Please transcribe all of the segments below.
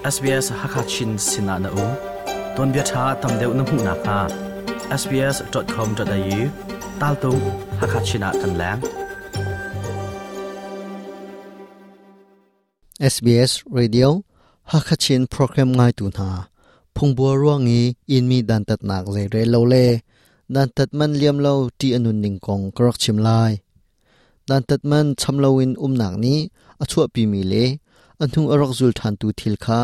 SBS Hakachin sinah na um. Tuanbia ṭha tam deuh na hmuh nakhnga sbs.com.au taltung Hakachin ah kan leng. SBS Radio Hakachin program ngaitu hna phungbua ruang i inmi dantatnak zeirel lo le dantat man liam lo ti anun ning kong ka rak chim lai. Dantat man cham loin umnak nih a chuahpimi le a hnu a rak zul ṭhantu thil kha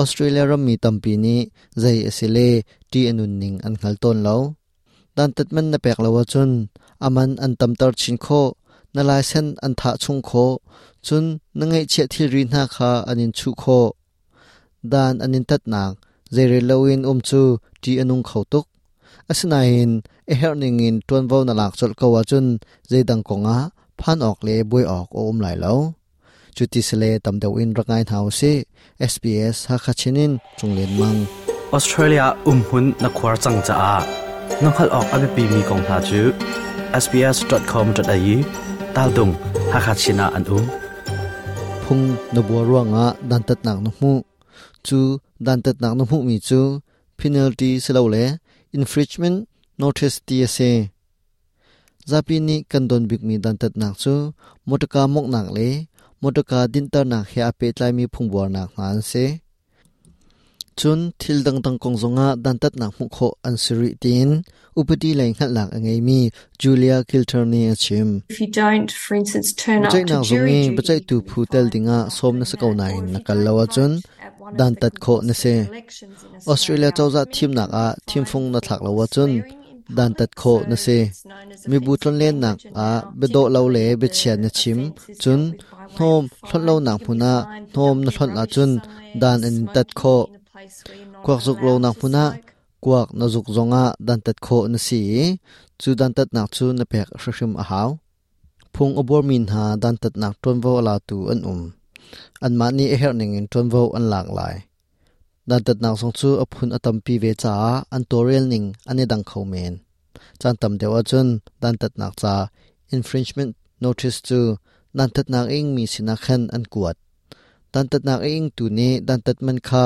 Australia rammi tampi nih zei a si le ṭih a nunning an hngal tawn lo. Dantat man na pek lo ahcun a man an tamter chin khawh, na laisen an thah chung khawh, cun na ngeihchiah thilri hna kha an in chuh khawh. Dan an in tatnak zeirel loin um cu ṭih a nung kho tuk. Asinain a herh ningin ṭuanvo na lak colh ko ahcun zeidang kongah phan awk le buai awk a um lai lo. Cuti sile tam deuh in rak ngai hna usih. SBS Hakha Chin in Cung Len Mang. Australia umhmun na khuar cang caah na hngalh awk a biapimi kong hna cu sbs.com.au taldung Hakha Chin ah an um. Phung na bua ruangah dantatnak na hmuh. Cu dantatnak na hmuhmi cu penalty silole infringement notice ti a si. Zapi nih kan don bikmi dantatnak cu motorka mawnghnak le motorka dinhternak he aa pehtlaimi phungbuarnak hna an si. Cun thil dangdang kong zongah dantatnak hmuh khawh an si rih tiin upadi lei hngalhnak a ngeimi Julia Kilter nih a chim. Biaceihnak zung i biaceihtu phu tel dingah sawm na si ko nain na kal lo ahcun dantat khawh na si. Australia cozah thimnak ah thimfung na thlak lo ahcun dantat khawh na si. Mibu tlonlennak ah biadawh lo le biachia na chim, cun hnawm hlonh lonak hmun ah hnawm na hlonh ahcun dan an in tat khawh. Kuak zuk lonak hmun ah kuak na zuk zongah dantat khawh na si i cu dantatnak cu na pek hrimhrim a hau. Phung a buarmi hna dantatnak ṭuanvo a latu an um. Anmah nih a herh ningin ṭuanvo an lak lai. Dantatnak zong cu a phun a tampi ve caah an tawlrel ning an i dang kho men. Caan tam deuh ahcun dantatnak ca infringement notice cu dantatnak a ingmi sinah khan an kuat. Dantatnak a ingtu nih dantat man kha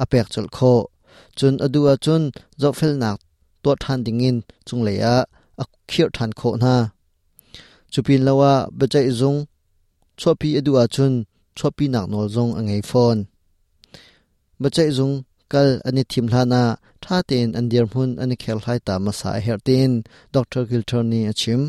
a pek colh khawh. Cun a duh ahcun zohfelnak tuah ṭhan dingin cunglei ah a khirh ṭhan khawh hna. Cu pin lo ah biaceih zung chuahpi a duh ahcun chuahpinak nawl zong a ngei fawn. Biaceih zung kal an i thim hlan ah ṭha tein an dirhmun an i kherhlai ta hmasa a herh tiin Dr. Gilter nih a chim.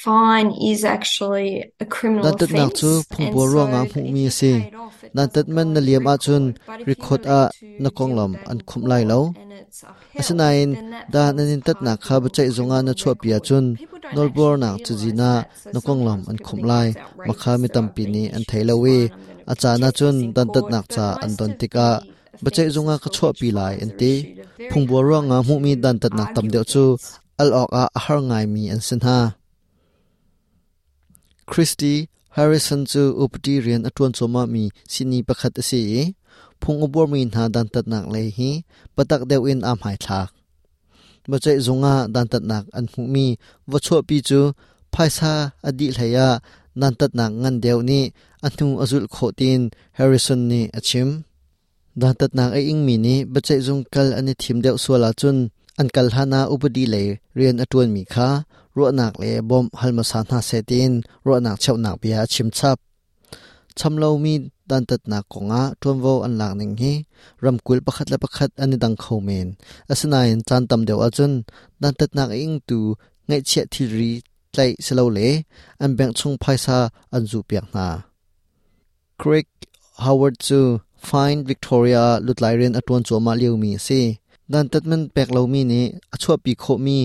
Fine is actually a criminal Dantatnak cu offence and phungbuar so ruangah if hmuhmi you a si. pay it off it Dantat doesn't man go na on liam the ahcun record. But if you record then ah need to na deal konglam with that an in khumh lai court lo. and it's upheld, Asinain then that dan an forms in part tatnak of kha your biaceih zungah na criminal chuahpi record. ahcun People don't actually nawlbuarnak realise cazin ah that, so na konglam sometimes an people khumh think lai. that's Mah kha outrageous mi that I've tampi been nih an issued thei this lo i fine, I'm going to a caan protest ahcun this in court. dantatnak But ca an most don of tikah the biaceih zungah offences ka for which chuahpi lai fines an are ti. issued are very Phungbuar hard ruangah hmuhmi to dantatnak tam argue deuh cu against. al awkah a har ngaimi an si hna. Christy Harrison cu upadi rian a ṭuan cuahmahmi sihni pakhat a si i phung a buarmi hna dantatnak lei hi patak deuh in aa hmaithlak. Biaceih zung ah dantatnak an hmuhmi va chuahpi cu phaisa a dih hlei ah dantatnak ngan deuh nih a hnu a zulh khawh tiin Harrison nih a chim. Dantatnak a ingmi nih biaceihzung kal an i thim deuh sual ahcun an kal hlanah upadi lei rian a ṭuanmi kha ruahnak le bawmh hal hmasa hna seh tiin ruahnak cheuhnak bia a chim chap. Cham lomi dantatnak kongah ṭuanvo an lak ning hi ramkulh pakhat le pakhat an i dang kho men. Asinain caan tam deuh ahcun dantatnak a ingtu ngeihchiah thilri tlaih silole an bank chung phaisa an zuhpiak hna. Craig Howard cu Fine Victoria ah lutlai rian a ṭuan cuahmah liomi a si. Dantat man pek lomi nih a chuahpi khawhmi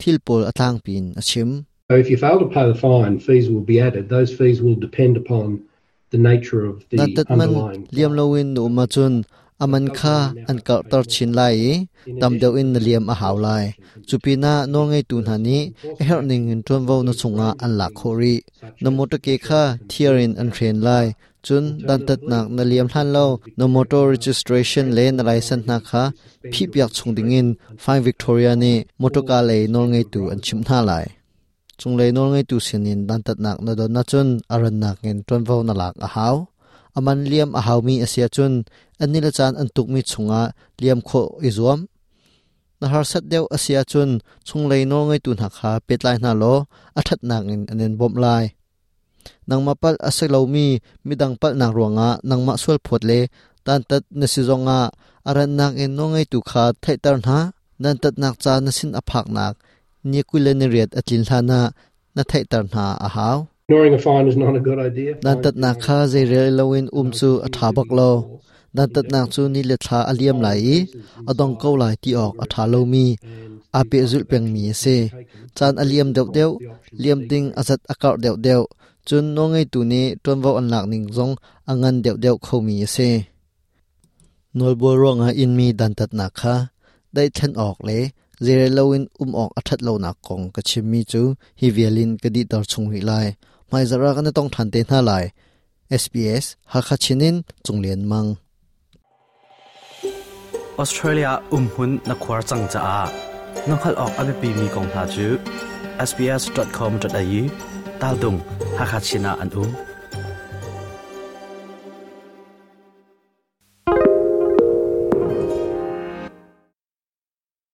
thil pawl a tlangpi in a chim. So if you fail to pay the fine, fees will be added. Those fees will depend upon the nature of the Dantat man underlying liam fine. loin na um ahcun a man kha an karhter chin lai i tam deuh in na liam a hau lai. Cu pinah nawlngeitu hna nih a herh ning in ṭuanvo na chungah an lak khawh rih. Na motor ke kha thiar in an hren lai. Cun dantatnak na liam hlan lo na motor registration le na license hna kha phihpiak chung dingin Fine Victoria nih motorka lei nawlngeitu an chimh hna lai. Cunglei nawlngeitu sinin dantatnak na don ahcun a rannak in ṭuanvo na lak a hau. A man liam a haumi a si ahcun a ni le caan an tukmi chungah liam khawh i zuam. Na harsat deuh a si ahcun chunglei nawlngeitu hna kha pehtlai hna law a ṭhatnak in an in bawmh lai. Nangmah palh a si lomi midang palhnak ruangah nangmah sualphawt le dantat na si zongah a rannak in nawlngeitu kha theihter hna. Dantatnak ca na sin a phaknak ni 28 a tlin hlanah na theihter hna a hau. Ignoring a fine is not a good idea. Dantatnak kha zeirel loin um cu a ṭha bak lo. Dantatnak cu ni le thla a liam lai i a dong ko lai ti awk a ṭha lomi, aa pehzulh pengmi a si. Caan a liam deuhdeuh, liam ding a zat a karh deuhdeuh, cun nawlngeitu nih ṭuanvo an lak ning zong a ngan deuhdeuh khomi a si. Nawlbual ruangah inmi dantatnak kha daihthlen awk le zeirel loin um awk a ṭhat lonak kong ka chimmi cu hi vial in ka dihter chung rih lai. Hmaizarh ah kan i tong ṭhan te hna lai. SBS Hakha Chin in Cung Lian Mang. Australia umhmun na khuar cang caah na hngalh awk a biapimi kong hna cu sbs.com.au tal tung Hakha Chin ah an um.